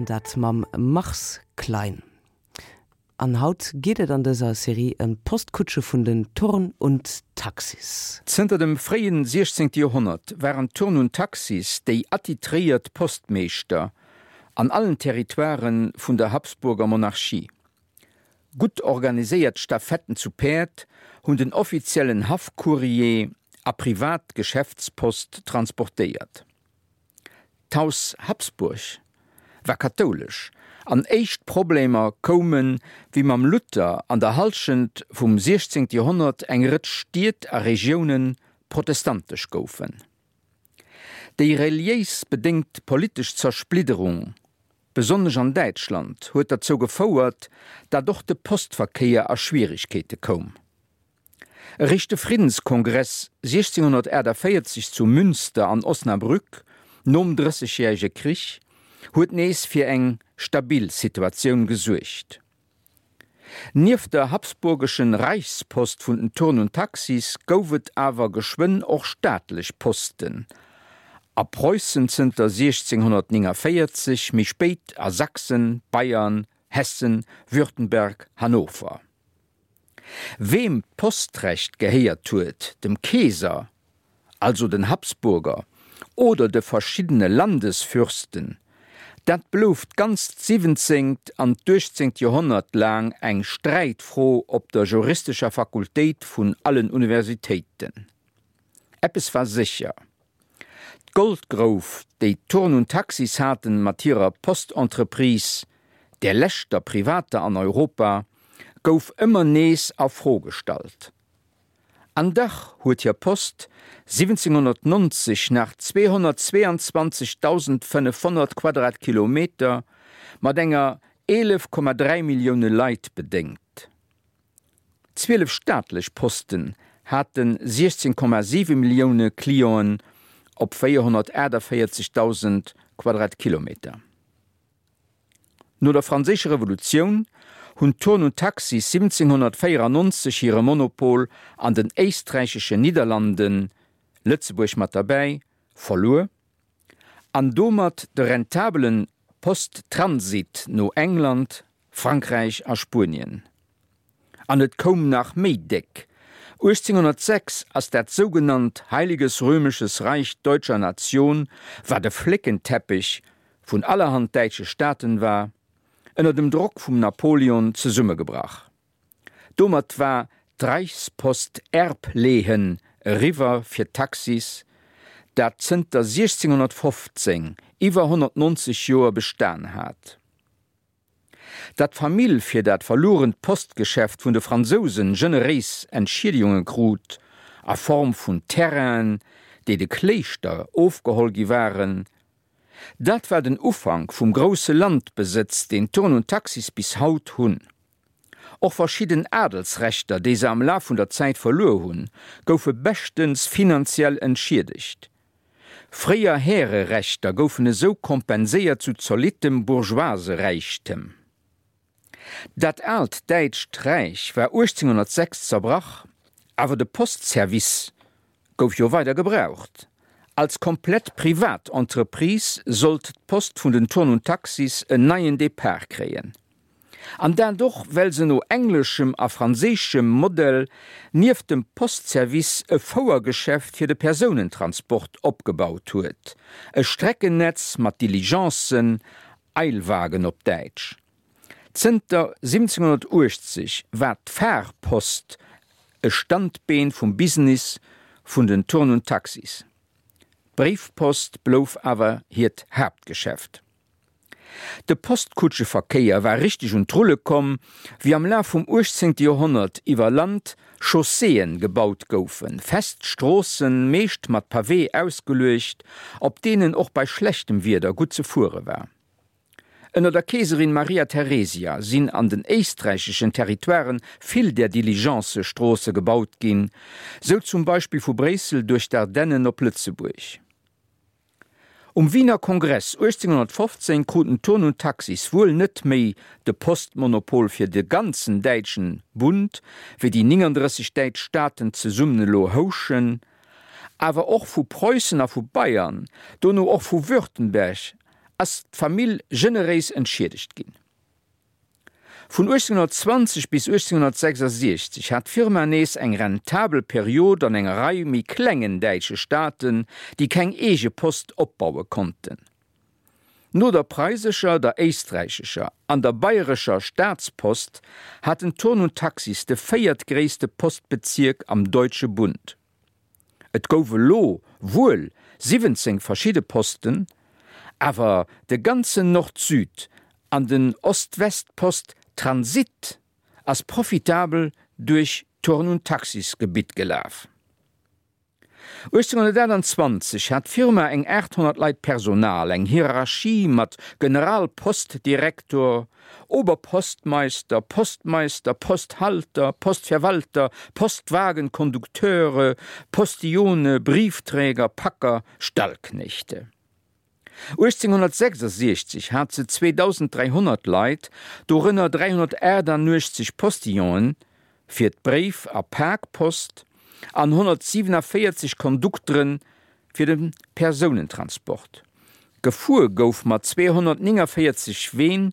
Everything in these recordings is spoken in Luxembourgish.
An dat mam Mars Klein. An haut geet et an dëser Serie ëm d'Postkutsche vun den Thurn und Taxis. Zënter dem fréien 16. Joerhonnert waren d'Thurn und Taxis déi attitréiert Postmeeschter an allen Territoiren vun der Habsburger Monarchie. Gutt organiséiert Stafetten zu Päerd hunn den offiziellen Haffcourrier a privat Geschäftspost transportéiert. D'Haus Habsburg war kathoulesch an éischt Problemer koumen, wéi mam Luther an der Hallschent vum 16. Joerhonnert eng Rëtsch Stied a Regioune protestantesch goufen. Déi reliéis bedéngt politesch Zersplidderung, besonnesch an Däitschland, huet derzou gefouert, dat och de Postverkéier a Schwieregkeete koum. Eréischt de Friddenskongress 1648 zu Münster an Osnabrück, nom Drëssegjärege Krich, huet nees fir eng stabil Situatioun gesuergt. Nieft der habsburgeschen Reichspost vun den Thurn und Taxis gouf et awer geschwënn och staatlech Posten a Preussen zënter 1649, méi spéit a Sachsen, Bayern, Hessen, Württemberg, Hannover. Weem d'Postrecht gehéiert huet, dem Keeser, also den Habsburger, oder de verschiddene Landesfürsten, dat blouf d'ganzt siwwenzéngt an d'uechtzéngt Joerhonnert laang eng Sträitfro op der juristescher Fakultéit vun allen Universitéiten. Eppes war sécher, D'Goldgrouf, déi d'Thurn und Taxis haten mat hirer Postentreprise, där leschter privater an Europa, gouf ëmmer nees a Fro gestallt. An dach huet hir Post 1790 nach 222.500 Quadratkilometer mat enger 11,3 Millioune Leit bedéngt. 12 staatlech Posten hate 16,7 Millioune Clienten op 448.000 Quadratkilometer. No der Franséischer Revolutioun hunn d'Thurn und Taxis 1794 hire Monopol an den éisträicheschen Nidderlanden, Lëtzebuerg mat derbäi, verluer an domat de rentabele Posttransit no England, Frankräich a Spuenien. An et koum nach méi déck, 1806 ass dat sougenannt Heiliges Römisches Reich Deutscher Nation, wat e Fléckenteppech vun allerhand däitsche Staaten war, ënner dem Drock vum Napoleon zesummegebrach. Domat war d'Reichspost Erblehen eriwwer fir d'Taxis, dat zënter 1615, iwwer 190 Joer bestan hat. Datt d'Famill fir dat verluerent Postgeschäft vun de Fransousen generéis Entschiedegunge krut, a Form vun Terrainen, déi de Kléischter ofgeholl gi waren, dat war den Ufank vum grousse Landbesëtz, deen Thurn und Taxis bis haut hunn. Och verschidden Adelsrechter, déi se am Laf vun der Zäit verluer hunn, goufe beschtens finanziell entschiedegt. Fréier Härerechter goufen esou kompenséiert zu zolittem Bourgeoiseräichtem. Dat aalt däitscht Räich war 1806 zerbrach, awer de Postservice gouf jo weider gebraucht. Als komplett privat Entreprise sollt d'Post vun den Thurn und Taxis en neien Depart kréien. An dat och well se no engleschem a franséischem Modell nieft dem Postservice e Fouergeschäft fir de Persounentransport opgebaut huet, e Streckennetz mat Diligencen, Eilwagen op Däitsch. Zënter 1780 war d'Fahrpost e Standbeen vum Business vun den Thurn und Taxis. D'Bréifpost blouf awer hiert Haaptgeschäft. De Postkutscheverkéier war richteg un d'Rulle komm, wéi am Laf vum 18. Joerhonnert iwwer Land Chausséeën gebaut goufen, fest Stroossen, meescht mat Pawee ausgeluecht, op deenen och bei schlechtem Wieder gutt ze fuere war. Ënner der Keeserin Maria Theresia sinn an den éisträicheschen Territoiren vill där Diligencëstroosse gebaut ginn, sou zum Beispill vu Bréissel duerch d'Ardennen op Lëtzebuerg. Um Wiener Kongress 1815 kruten Thurn und Taxis wuel net méi de Postmonopol fir de ganzen däitschen Bund, wéi déi 39 däitsch Staaten zesummen elo houschen, awer och vu Preussen a vu Bayern, dono och vu Württemberg. ass d'Famill generéis entschiedegt ginn. Vun 1820 bis 1866 hat d'Firma nees eng rentabel Period an enger Rei méi klengen däitsche Staaten, déi keng eege Post opbaue konnten. No der preisescher, der éisträichescher an der bayrescher Staatspost hat den Thurn und Taxis de véiertgréisste Postbezierk am Deutsche Bund. Et gouf elo wuel 17 verschidde Posten, awer de ganzen Nord-Süd an den Ost-West-Post Transit ass profitabel duerch d'Thurn und Taxis Gebitt gelaf. 1828 hat d'Firma eng 800 Leit Personal, eng Hierarchie mat Generalpostdirektor, Oberpostmeister, Postmeister, Posthalter, Postverwalter, Postwagenkondukteure, Postillone, Briefträger, Packer, Stallknechte. 1866 hat se 2.300 Leit, dorënner 388 Postillonen fir d'Bréif a Pakpost an 147 Kondukteren fir de Persounentransport. Gefuer gouf mat 249 Ween,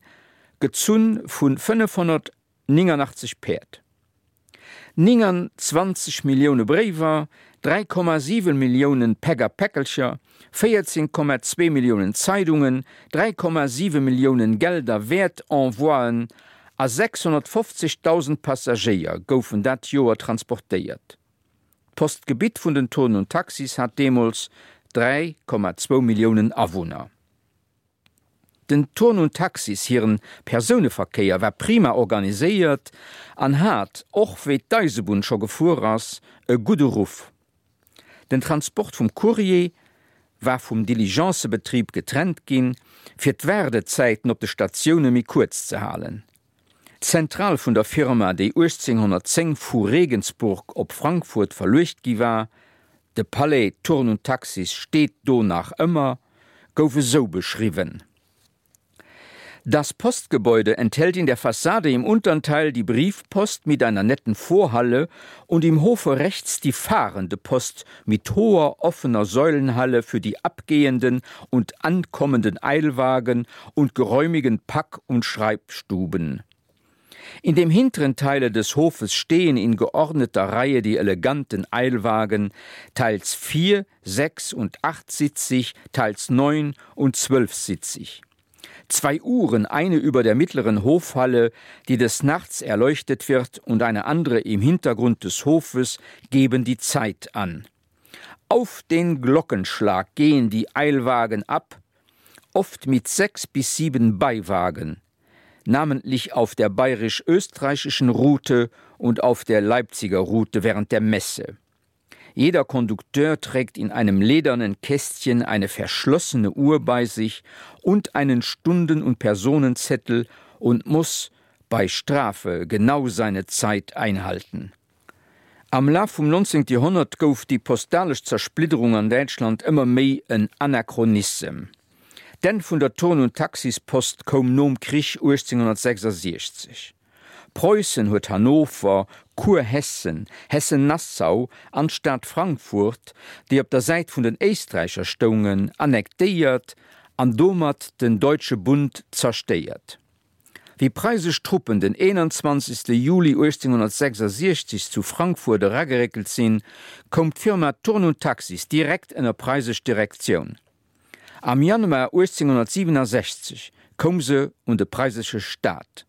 gezunn vu 589 Päerd. 29 Millioune Bréiwer, 3,7 Millioune Päck a Päckelcher, 14,2 Milliounen Zeidungen, 3,7 Milliounen Geld a Wäertenvoien a 650.000 Passagéier goufen dat Joer transportéiert. D'Postgebitt vun den Thurn und Taxis hat deemools 3,2 Milliounen Awunner. Den Thurn und Taxis hiren Persouneverkéier war prima organiséiert an hat, och wéi d'Eisebunn scho gefuer ass, e gudde Ruff. Den Transport vum Courrier war vum Diligencebetrib getrennt ginn, fir d'Waardezäiten op de Statioune méi kuerz ze halen. D'Zentral vun der Firma, déi 1810 vu Regensburg op Frankfurt verluecht gi war, de Palais Thurn und Taxis steet do nach ëmmer, gouf esou beschriwwen, Das Postgebäude enthält in der Fassade im unteren Teil die Briefpost mit einer netten Vorhalle und im Hofe rechts die fahrende Post mit hoher offener Säulenhalle für die abgehenden und ankommenden Eilwagen und geräumigen Pack- und Schreibstuben. In dem hinteren Teile des Hofes stehen in geordneter Reihe die eleganten Eilwagen, teils vier, sechs und achtsitzig, teils neun und zwölfsitzig. Zwei Uhren, eine über der mittleren Hofhalle, die des Nachts erleuchtet wird, und eine andere im Hintergrund des Hofes geben die Zeit an. Auf den Glockenschlag gehen die Eilwagen ab, oft mit sechs bis sieben Beiwagen, namentlich auf der bayerisch-österreichischen Route und auf der Leipziger Route während der Messe. Jeder Kondukteur trägt in einem ledernen Kästchen eine verschlossene Uhr bei sich und einen Stunden- und Personenzettel und muss bei Strafe genau seine Zeit einhalten. Am Laf vum 19. Joerhonnert gouf déi postalesch Zersplidderung an Däitschland ëmmer méi en Anachronissem. D'Enn vun der Thurn und Taxis-Post koum nom Krich 1866. Preussen huet Hannover, Kurhessen, Hessen-Nassau an d'Stad Frankfurt, déi op der Säit vun den Éisträicher stoungen, annektéiert an domat den Deutsche Bund zerstéiert. Wéi preisesch Truppen den 21. Juli 1866 zu Frankfurt erageréckelt sinn, koum d'Firma Thurn und Taxis direkt ënner preisesch Direktioun. Am Januar 1867 koum se un de preisesche Staat.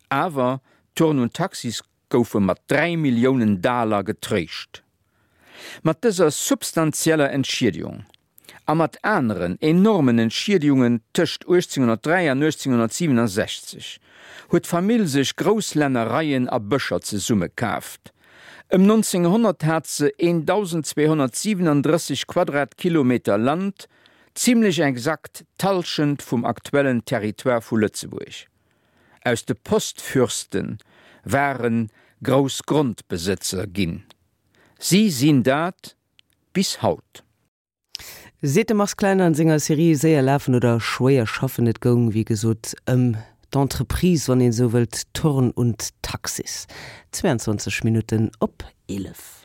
Awer Thurn und Taxis goufe mat 3 Milliounen Daler getréischt. Mat dëser substanzieller Entschiedegung a mat aneren enormen Entschiedegungen tëscht 1803 an 1867 huet d'Famill sech grouss Lännereien a Bëscher zesummekaaft. Ëm 1900 hat se 1.237 Quadratkilometer Land, zimmlech exakt d'Hallschent vum aktuellen Territoire vu Lëtzebuerg. Aus de Postfürste ware grouss Grondbesëtzer ginn. Si sinn dat bis haut. Seet de Mars Klein an senger Serie Séier lafen oder schwéier schaffen. Et goung wéi gesot ëm d'Entreprise, wann een esou wëllt, Thurn und Taxis. 22 Minutten op 11.